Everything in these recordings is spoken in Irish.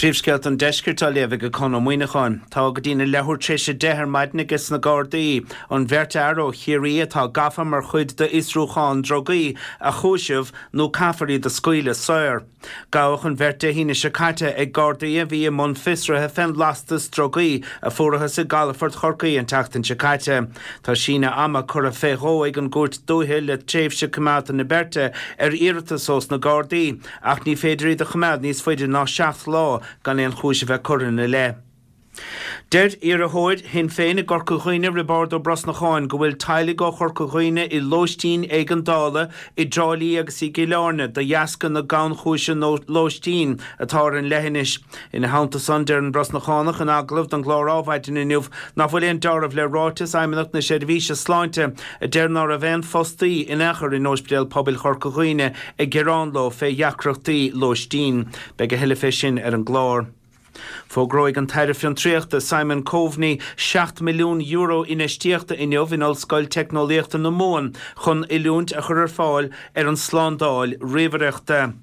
Príomhscéalta an Deiscirt á léamh ag Conn Ó Muíneacháin. Tá go dtína leathuair tar éis 10 ar maidin ages na Gardaí an bheirt fhear ó Chiarraí atá gafa mar chuid d'fhiosrúchán drugaí a chúiseamh nó caithfear iad a scaoileadh saor. Gabhadh an bheirt Dé hAoine seo caite ag Gardaí a bhí i mbun fiosraithe fén lastas drugaí a fuarathas i gcalafort Chorcaí an tseachtain seo caite. Tá síneadh ama curtha fé dhó ag an gCúirt Dúiche le tréimhse coimeádta na beirte ar iarratas ós na Gardaí. Ach ní féidir iad a choimeád níos faide ná 7 lá gan aon chúis a bheith curtha ina leith. Deir iarrthóir Shinn Féin i gCorca Dhuibhne, Roibeárd Ó Brosnacháin, go bhfuil teaghlaigh ó Chorca Dhuibhne i lóistín éigeandála i dTrá Lí agus i gCill Airne de dheasca na gannchúise lóistín atá ar an leithinis. Ina theannta san, deir an Brosnachánach in agallamh don gclár Ádhmhaidin inniu nach bhfuil aon deáramh le ráiteas Fheidhmeannacht na Seirbhíse Sláinte a deir ná raibh aon fostaí in aon chor in Ospidéal Pobail Chorca Dhuibhne ag gearán leo fé dheacrachtaí lóistín. Beidh a thuilleadh fé sin ar an gclár. Fógróidh an tAire Fiontraíochta Simon Coveney €7 milliún infheistíochta inniu in Ollscoil Teicneolaíochta na Mumhan chun oiliúint a chur ar fáil ar an tslándáil ríomhaireachta.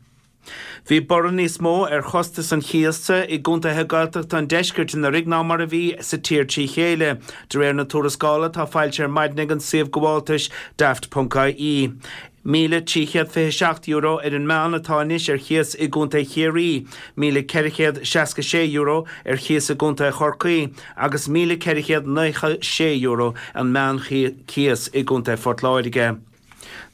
Bhí borradh níos mó ar chostas an chíosa i gcontaetha Gaeltachta an deiscirt anuraidh ná mar a bhí sa tír trí chéile, de réir na tuarascála atá foilsithe ar maidin ag an suíomh gabháltais Daft.ie. €1,327 ar an meán atá anois ar chíos i gcontae Chiarraí, €1,466 ar chíos i gcontae Chorcaí agus €1,496 an meánchíos i gcontae Phort Láirge.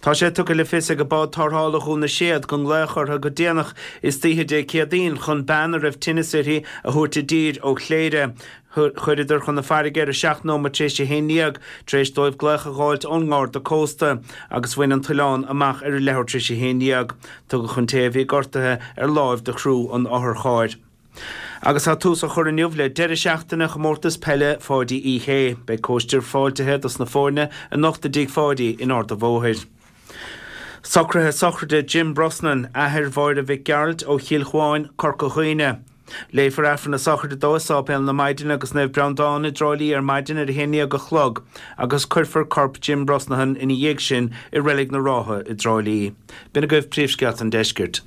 Tá sé tugtha le fios ag Bád Tarrthála Dhún na Séad go nglaodh orthu go déanach istoíche Dé Céadaoin chun bean a raibh tinneas uirthi a thabhairt i dtír ó Chléire. Chuireadar chun na farraige ar 7 nóiméad tar éis a haon dhéag tar éis dóibh glaoch a dh'fháilt ón nGarda Cósta agus bhain an t-oileán amach ar a leathuair tar éis a haon dhéag. Tugadh an té a bhí gortaithe ar láimh do chriú an otharchairr. Agus tá tús á chur inniu le deireadh seachtaine Chomórtas Peile Pháidí Uí Shé. Beidh cóistir fáiltithe dos na foirne anocht i dTigh Pháidí in Ard a' Bhóthair. Socruithe sochraide Jim Brosnan, athair Mháire Mhic Gearailt ó Chill Chuáin, Corca Dhuibhne. Léifear Aifreann na sochraide dó i Sáipéal na Maighdine agus Naomh Breandán i dTrá Lí ar maidin ar a haon dhéag a chlog agus cuirfear corp Jim Brosnahan ina dhiaidh sin i Reilig na Rátha i dTrá Lí. B'in agaibh príomhscéalta an deiscirt.